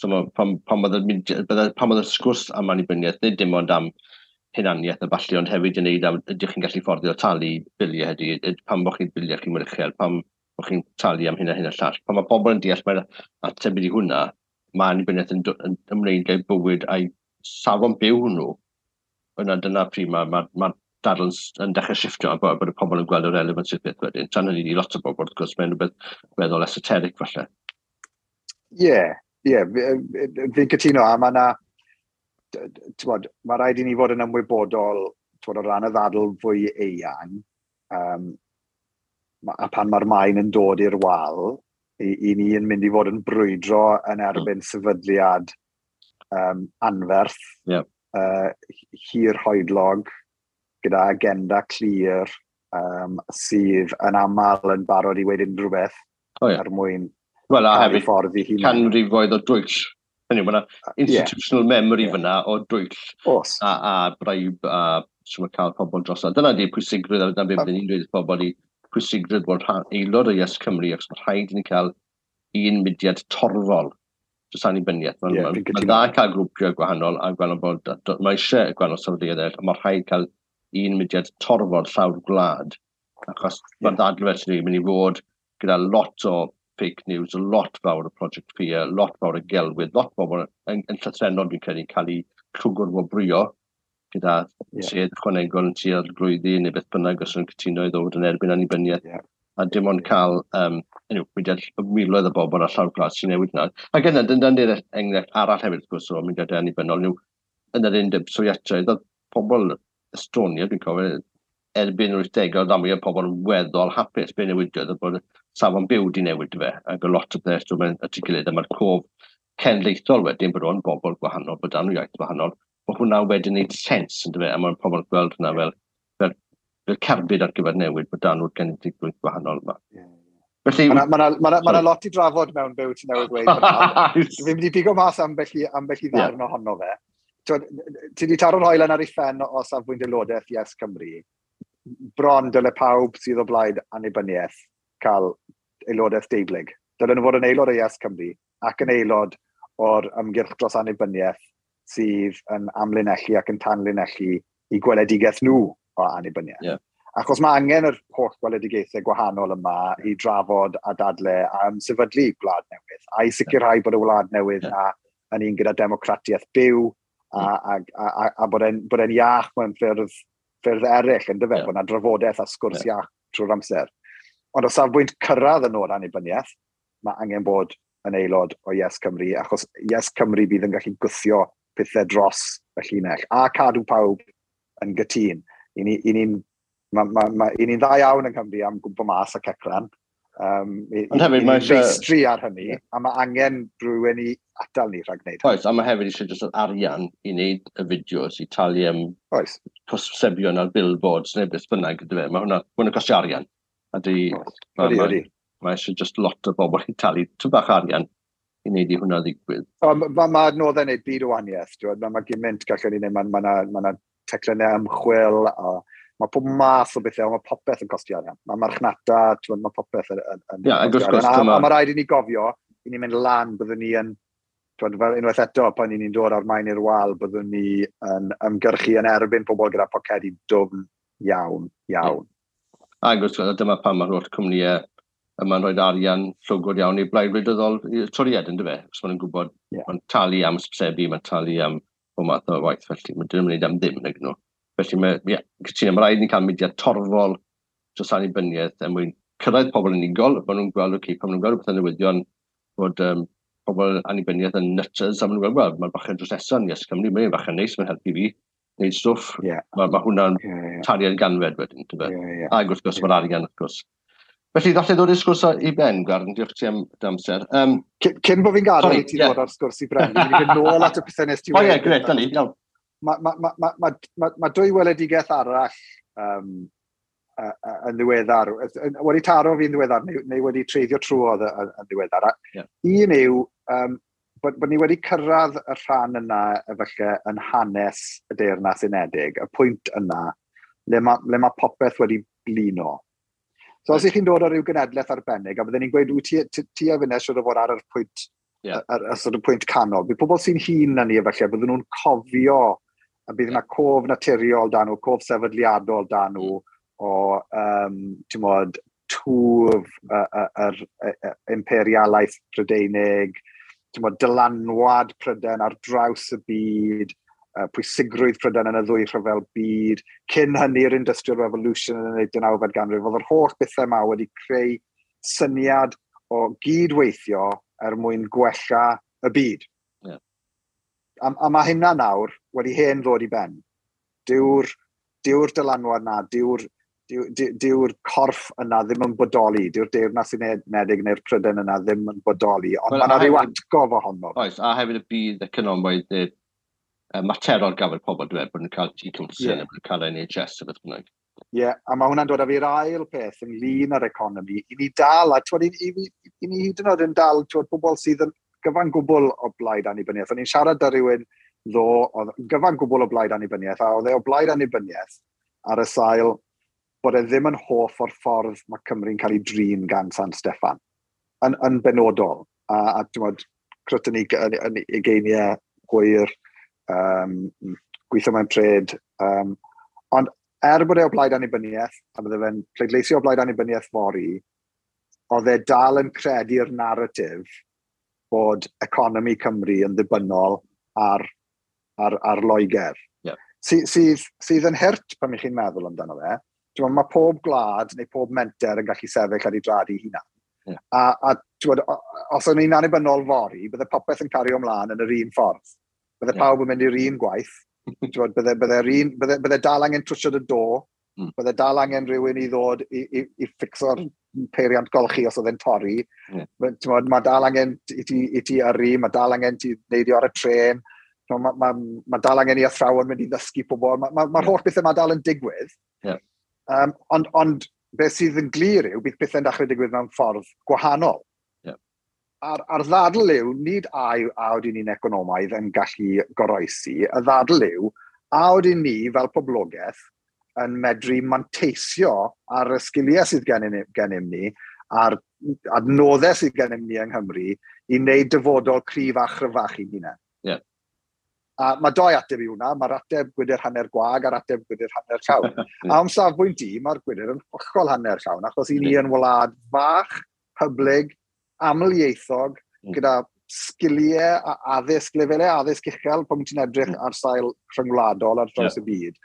So ma, pan oedd y sgwrs am annibyniaeth, nid dim ond am hunaniaeth a ballu, ond hefyd yn neud am ydych chi'n gallu fforddio talu biliau heddi, pam bod chi'n biliau chi'n mor uchel, pam bod chi'n talu am hyn a hyn a llall. Pan mae pobl yn deall mae'r ateb i hwnna, mae annibyniaeth yn ymwneud â'i bywyd a'i safon byw nhw. Yna dyna pryd mae dadl yn dechrau shifftio a bod y pobl yn gweld y relevance i'r peth wedyn. Tan hynny i lot o bobl, wrth gwrs, mae'n rhywbeth weddol esoteric falle. Ie, fi'n cytuno, a mae yna, mae rhaid i ni fod yn ymwybodol, t'wod, o ran y ddadl fwy eang, a pan mae'r maen yn dod i'r wal, i ni yn mynd i fod yn brwydro yn erbyn sefydliad anferth, hir hoedlog, gyda agenda clir, sydd yn aml yn barod i weud unrhyw beth er mwyn Wel, a hefyd ffordd i hunan. Canrifoedd o dwyll. Hynny, mae yna institutional memory fyna o dwyll a bribe a sy'n cael pobl dros. Dyna di pwysigrwydd, a dyna beth byddwn ni'n dweud wrth pobl i pwysigrwydd bod rhan, aelod o Yes Cymru, achos mae rhaid i ni cael un mudiad torfol dros annibyniaeth. Mae'n Fi'n ma cytuno. dda cael grwpiau gwahanol a gweld bod mae eisiau gwahanol sefydliadau eraill, ond mae rhaid cael un mudiad torfol llawr gwlad, achos mae'r ddadl felly yn mynd i fod gyda lot o fake news, lot fawr o Project Fear, lot fawr o gelwydd, lot fawr yn llythrennol dwi'n credu cael ei llwgr wobrwyo gyda sedd ychwanegol yn tua'r glwyddi neu beth bynnag os nhw'n cytuno i ddod yn erbyn annibyniaeth. A dim ond cael anyway, mudiad miloedd o bobl ar llawr gwlad sy'n newid yna. Ac yna, dyna'n dyna'r enghraifft arall hefyd, wrth gwrs, o mudiadau annibynnol, yw yn yr Undeb Sofietaidd, oedd pobl Estonia, dwi'n cofio, erbyn yr 80au, oedd mwy o pobl yn weddol hapus. Be newidiodd oedd bod safon byw di newid fe, ac o lot o beth dwi'n mynd at ei gilydd, a mae'r cof cenedlaethol wedyn bod o'n bobl gwahanol, bod dan nhw iaith wahanol, bod hwnna wedyn wneud sens, yn dyfe, a mae'n pobl yn gweld hwnna fel cerbyd ar gyfer newid, bod dan nhw'r genedlaethol gwahanol yma. Felly, Mae ma lot i drafod mewn byw ti'n newydd dweud fan'na. Fi'n mynd i bigo mas ambell i ddarn ohono fe. T'wod, ti wedi taro'r hoelen ar ei phen o safbwynt aelodaeth Yes Cymru. Bron dyle pawb sydd o blaid annibyniaeth cael aelodaeth deublyg. Dylen nhw fod yn aelod o Yes Cymru ac yn aelod o'r ymgyrch dros annibyniaeth sydd yn amlinellu ac yn tanlinellu i gweledigaeth nhw o annibyniaeth. Achos mae angen yr holl gweledigaethau gwahanol yma i drafod a dadle a ymsefydlu gwlad newydd, a i sicrhau bod y wlad newydd na yn un gyda democratiaeth byw a bod e'n iach mewn ffyrdd eraill, yn dyfe, bod yna drafodaeth a sgwrs iach trwy'r amser. Ond o safbwynt cyrraedd y nod annibyniaeth, mae angen bod yn aelod o Yes Cymru, achos Yes Cymru bydd yn gallu gwthio pethau dros y llinell, a cadw pawb yn gytûn. I ni'n ma, ma, ma, i ni'n dda iawn yng Nghymru am gwmpo mas a cecran. Ond hefyd I mae ni'n feistri ar hynny, a mae angen rhywun i atal ni rhag gwneud. Oes, a mae hefyd eisiau jyst yr arian i wneud y fideos, i talu am hysbysebion ar billboards neu beth bynnag, yndyfe. Mae hwnna costio arian. A di, mae eisiau just lot o bobl i talu tw bach arian i wneud i hwnna ddigwydd. Ma adnoddau wneud byd o wahaniaeth. Mae gymaint gallwn ni wneud, ma teclynnau ymchwil, a mae pob math o bethau, mae popeth yn costio arian. Mae marchnata, t'wod, mae popeth yn Ie, ac wrth costio gwrs, arian. A mae rhaid i ni gofio, i ni mynd lan, byddwn ni yn, t'wod, fel unwaith eto, pan i ni'n dod ar maen i'r wal, byddwn ni yn ymgyrchu yn erbyn pobl gyda pocedi dwfn iawn, iawn. Ac wrth gwrs, dyma pam mae'r holl cwmnïau yma'n rhoi arian llwgwr iawn i blaid wleidyddol i Toriad, ynddo fe? Os maen nhw'n gwybod, mae'n talu am ysbysebu, mae'n talu am bob math o waith, felly mae'n ddim yn gwneud am ddim, nag nhw. Felly mae, ie, cytuno, mae rhaid ni cael mudiad torfol dros annibyniaeth er mwyn cyrraedd pobl unigol, maen nhw'n gweld, oce, pan maen nhw'n gweld rhywbeth yn newyddion, bod pobl annibyniaeth yn nutters, a maen nhw'n gweld, wel, mae'r bachgen drws nesaf yn Yes Cymru, mae'n bachgen neis, mae'n helpu fi wneud stwff. Mae hwnna'n tariad ganfed wedyn, ti'n Ac wrth gwrs, mae'r arian, wrth gwrs. Felly, ddallai ddod i'r sgwrs i ben, Gwarn, diolch ti am dy amser. Cyn bod fi'n gadael i ti ddod ar sgwrs i ben, fi'n mynd nôl at y pethau nes ti wedi. O ie, gret, da ni, iawn. Mae dwy weledigaeth arall yn ddiweddar, wedi taro fi'n ddiweddar, neu wedi treiddio trwodd yn ddiweddar. Un yw bod ni wedi cyrraedd y rhan yna efallai yn hanes y Deyrnas Unedig, y pwynt yna, le mae popeth wedi blino. So os ych chi'n dod o ryw genedlaeth arbennig, a bydden ni'n gweud, wyt ti a finne siŵr o fod ar yr pwynt, ar sort of pwynt canol. Bydd pobl sy'n hŷn na ni efallai, bydden nhw'n cofio, a bydd yna cof naturiol dan nhw, cof sefydliadol dan nhw, o, ti'n modd, twf yr imperialaeth Prydeinig, ti'n modd, dylanwad Prydain ar draws y byd, pwysigrwydd Prydain yn y ddwy rhyfel byd, cyn hynny'r Industrial Revolution yn y 19fed ganrif, oedd yr holl bethau yma wedi creu syniad o gydweithio er mwyn gwella y byd. A mae hynna nawr wedi hen ddod i ben. Dyw'r dylanwad na, dyw'r corff yna ddim yn bodoli, dyw'r Deyrnas Unedig neu'r Prydain yna ddim yn bodoli, ond mae yna rhyw atgof ohono. Oes, a hefyd y byd economaidd materol gafel pobl, dwi'n meddwl, bod nhw'n cael T-Council, bod nhw'n cael NHS a beth bynnag. Ie, a mae hwnna'n dod â fi'r ail peth ynglyn â'r economi. I ni dal, a twod, i ni hyd yn oed yn dal, twod, pobl sydd yn gyfan gwbl o blaid annibyniaeth. O'n i'n siarad â rhywun ddo, oedd yn gyfan gwbl o blaid annibyniaeth, a oedd e o blaid annibyniaeth ar y sail bod e ddim yn hoff o'r ffordd mae Cymru'n cael ei drin gan San Steffan, yn benodol. A ti'n gwbod, crwt yn ei ugeiniau hwyr, gweithio mewn trade. Ond er bod e o blaid annibyniaeth, a bydde fe'n pleidleisio o blaid annibyniaeth fory, oedd e dal yn credu'r narratif bod economi Cymru yn ddibynnol ar Loegr. Sydd yn hurt pan ych chi'n meddwl amdano fe. Mae pob gwlad neu pob menter yn gallu sefyll ar ei draed ei hunan. A ti'n gwbod, os o'n i'n annibynnol fory, bydde popeth yn cario ymlaen yn yr un ffordd. Bydde pawb yn mynd i'r un gwaith. Ti'n gwbod, bydde dal angen trwsio dy do, bydde dal angen rhywun i ddod i ffixo'r peiriant golchi os oedd e'n torri. Ti'n gwbod, mae dal angen i ti yrru, mae dal angen ti neidio ar y trên, mae dal angen i athrawon mynd i ddysgu pobl. Mae'r holl bethau mae dal yn digwydd. Ond beth sydd yn glir yw, bydd pethau'n dechrau digwydd mewn ffordd gwahanol. A'r ddadl yw, nid a ydyn ni'n economaidd yn gallu goroesi, y ddadl yw, a ydyn ni fel poblogaeth yn medru manteisio ar y sgiliau sydd gennym ni, a'r adnoddau sydd gennym ni yng Nghymru, i wneud dyfodol cryf a chryfach i hunain. A mae doi ateb i hwnna, mae'r ateb gwydr hanner gwag a'r ateb gwydr hanner llawn. A o'm safbwynt i, mae'r gwydr yn hollol hanner llawn, achos i ni yn wlad fach, hyblyg, amlieithog, gyda sgiliau a addysg, lefelau addysg uchel, pan ti'n edrych ar sail rhyngwladol ar draws y byd.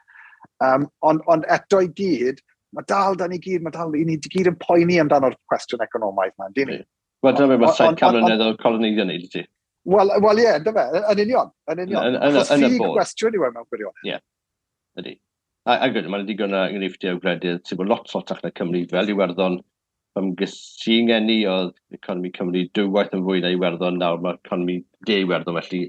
Ond eto i gyd, mae dal da ni gyd, mae dal, i ni gyd yn poeni amdano'r cwestiwn economaidd yma, yndyn ni? Wel, dyna beth mae 700 mlynedd o coloneiddio wneud i ti. Wel, ie, ynddo fe, yn union, yn union. Achos Yn y ffug bôn. gwestiwn yw e mewn gwirionedd. Ie, ydy. A gwyd, mae'n digon o enghreifftiau o gwledydd sydd bod lot sotach na Cymru, fel Iwerddon, pan ges i'n ngeni oedd economi Cymru dwywaith yn fwy na Iwerddon, nawr mae economi de Iwerddon, felly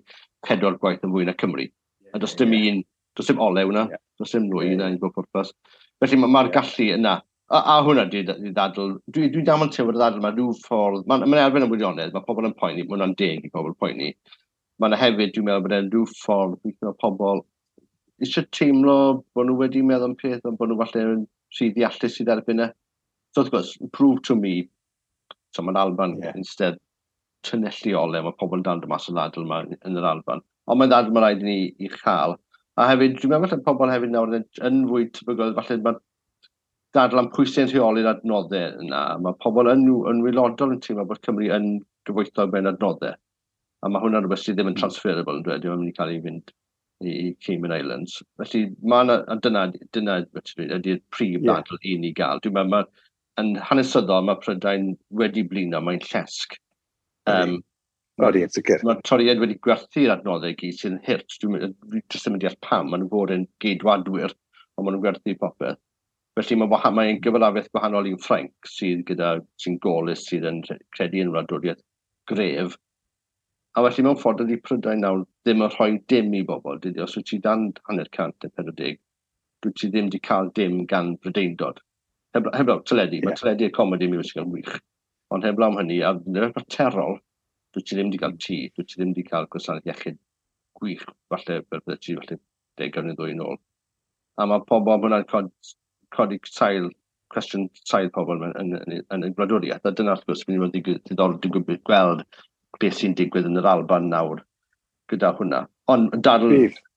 4 gwaith yn fwy na Cymru. A does dim un, does dim olew na, does dim nwy na i bob pwrpas. Felly mae'r gallu yna. A hwnna di ddadl, dwi'n dal yn teimlo'r ddadl, mae rhyw ffordd, mae'n elfen o wirionedd, mae pobl yn poeni, mae hwnna'n deg i pobl poeni. Mae yna hefyd, dwi'n meddwl bod e'n rhyw ffordd, weithio mae pobl eisiau teimlo bod nhw wedi meddwl am peth, ond bod nhw falle yn rhy ddeallus i dderbyn e. So wrth gwrs, prove to me, so mae'n Alban instead tynellu ole, mae pobl yn dal mas o ddadl yma yn yr Alban. Ond mae'n ddadl mae rhaid i ni i chael. A hefyd, dwi'n meddwl falle pobl hefyd nawr yn fwy tebygol, falle mae dadl am pwy sy'n rheoli'r adnoddau yna. Mae pobl yn waelodol yn teimlo bod Cymru yn gyfoethog mewn adnoddau. A mae hwnna'n rhywbeth sydd ddim yn transferable yn dweud, ddim yn mynd i cael ei fynd i Cayman Islands. Felly, mae yna, a dyna ydy'r prif ddadl i ni gael. Dwi'n meddwl, yn hanesyddol, mae Prydain wedi blino, mae'n llesg. Odi, yn sicr. Mae'r Torïaid wedi gwerthu'r adnoddau gyd sy'n hurt. Dwi'n jyst ddim yn deall pam. Maen nhw'n fod yn geidwadwyr, ond maen nhw'n gwerthu popeth. Felly mae'n gyfalafiaeth gwahanol i'w Ffrainc sydd gyda, sy'n golus, sydd yn credu yn wladwriaeth gref. A felly mewn ffordd ydy Prydain nawr ddim yn rhoi dim i bobl. Dydy, os wyt ti dan 50 neu 40, dwyt ti ddim wedi cael dim gan Brydeindod. Heblaw teledu, mae teledu a comedy musical yn wych. Ond heblaw am hynny, a materol, dwyt ti ddim wedi cael tŷ, dwyt ti ddim wedi cael gwasanaeth iechyd gwych, falle, fel bydde ti, falle 10 neu ddwy yn ôl. A mae pobl, hwnna'n codi sail, cwestiwn sail pobl yn y gwladwriaeth. A dyna, wrth gwrs, mynd i fod yn diddorol digwydd gweld beth sy'n digwydd yn yr Alban nawr gyda hwnna. Ond dadl,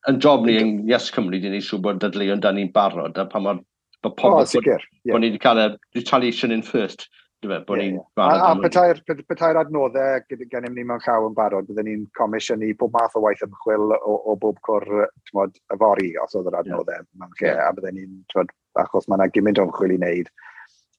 yn job ni yn Yes Cymru, di wneud siŵr bod dadleuon da ni'n barod, a pa mor bod pobl, bod ni wedi cael y retaliation in first, bod ni'n barod. A petai'r adnoddau gennym ni mewn llaw yn barod, byddwn ni'n comisiynu pob math o waith ymchwil o bob cwr, t'mod, yfory, os oedd yr adnoddau mewn lle, a byddwn ni'n, t'mod, achos mae yna gymaint o ymchwil i wneud,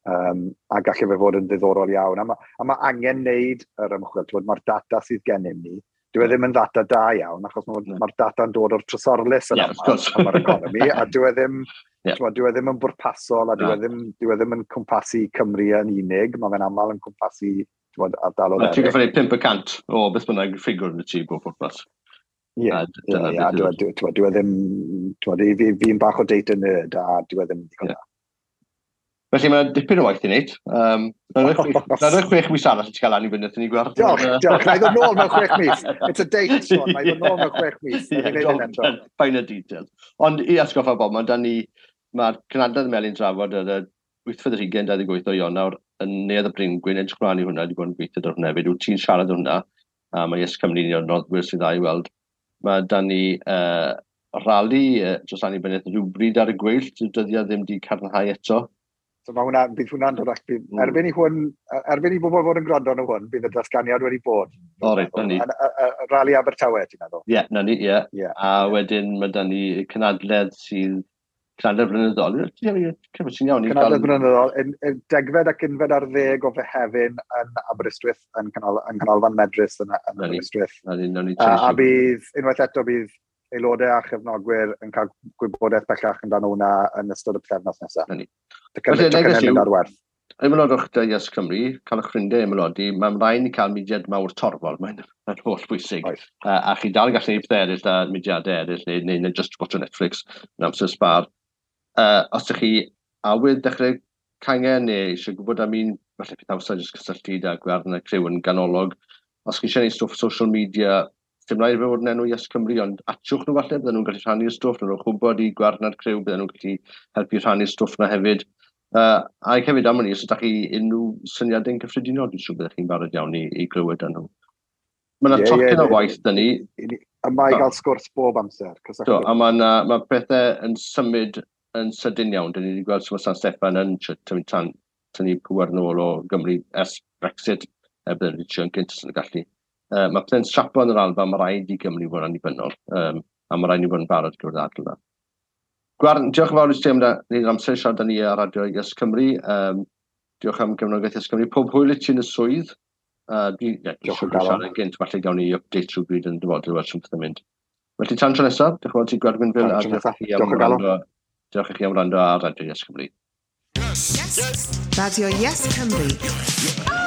a gallai fe fod yn ddiddorol iawn. A ma angen wneud yr ymchwil, t'mod, mae'r data sydd gennym ni, dyw e ddim yn ddata da iawn, achos mae'r data'n dod o'r trysorlys yn aml am yr economi, a dyw e ddim, dyw e ddim yn bwrpasol, a dyw e ddim yn cwmpasu Cymru yn unig, mae fe'n aml yn cwmpasu, t'mod, ardaloedd eraill. Ti'n gorfod neud 5% o beth bynnag ffigwr yn y tŷ bob pwrpas. Ie, dyw e ddim, t'mod, fi'n bach o data nerd, a dyw e ddim yn ddigon da. Felly mae dipyn o waith i wneud. Na'r 6 mis arall i ti cael annibyniaeth i ni gweld. Diolch, diolch. Na i ddod nôl mewn 6 mis. It's a date, Sean. Na i ddod nôl mewn 6 mis. Fine y details. Ond i atgoffa bob, mae'r cynhadledd Melin drafod ar y 8th 28 o Ionawr yn Neuadd y Bryngwyn, edrych mlaen i hwnna, wedi bod yn gweithio ar hwnna hefyd. Wyt ti'n siarad hwnna, a mae Yes Cymru un o'r noddwyr sydd dda i weld. Mae da ni rali dros annibyniaeth rhywbryd ar y gweill, dyddiad ddim wedi cadarnhau eto. So mae hwnna, bydd hwnna'n dod allan, erbyn i bobl fod yn gwrando arno hwn, bydd y datganiad wedi bod. O reit, na ni. Rali Abertawe, ti'n meddwl? Ie, na ni, ie. A wedyn mae da ni cynhadledd sydd, cynhadledd blynyddol. Ti'n iawn. Cynhadledd blynyddol, 10 ac 11 o Fehefin yn Aberystwyth, yn Canolfan Medrus yn Aberystwyth. A bydd, unwaith eto, bydd aelodau a chefnogwyr yn cael gwybodaeth bellach amdano hwnna yn ystod y pythefnos nesaf. Felly, neges yw, ar werth. Ymaelodwch dy Yes Cymru, cael eich ffrindiau ymaelodi, mae'n rhaid ni cael mudiad mawr torfol, mae'n holl bwysig. A chi dal yn gallu gwneud pethau eraill a mudiadau eraill, neu just watch o Netflix yn amser sbar. Os ydych chi awydd dechrau cangen neu eisiau gwybod am un, falle peth amser jyst cysylltu â Gwern a criw yn ganolog. Os chi eisiau gwneud stwff social media, dim rhaid i fe fod yn enw Yes Cymru, ond atiwch nhw falle, bydden nhw'n gallu rhannu'r stwff, nhw'n gwybod i Gwern a'r criw, bydden nhw'n gallu helpu rhannu'r stwff na hefyd. A hefyd am hynny, os ydych chi unrhyw syniadau'n cyffredinol, dwi'n siŵr byddech chi'n barod iawn i glywed â nhw. Mae yna tocyn o waith dyn ni. A mae i gael sgwrs bob amser. Do, a mae pethau yn symud yn sydyn iawn. Dyn ni wedi gweld sut mae San Steffan yn tynnu pŵer nôl o Gymru ers Brexit, bydden nhw wedi trio yn gynt os yn gallu. Mae pethau'n strapo yn yr Alban, mae rhaid i Gymru fod yn annibynnol, a mae rhaid ni fod yn barod gyda'r ddadl yna. Gwern, diolch yn fawr i ti am wneud yr amser i siarad â ni ar Radio Yes Cymru. Diolch am gefnogaeth Yes Cymru. Pob hwyl i ti yn y swydd. Diolch o galon. Siarad yn gynt, falle gawn ni update rhywbryd yn dyfodol, weld sut pethau'n mynd. Felly tan tro nesaf, diolch yn fawr ti Gwern Gwynfil, a diolch i chi am wrando ar Radio Yes Cymru. Yes. Yes. Radio Yes Cymru.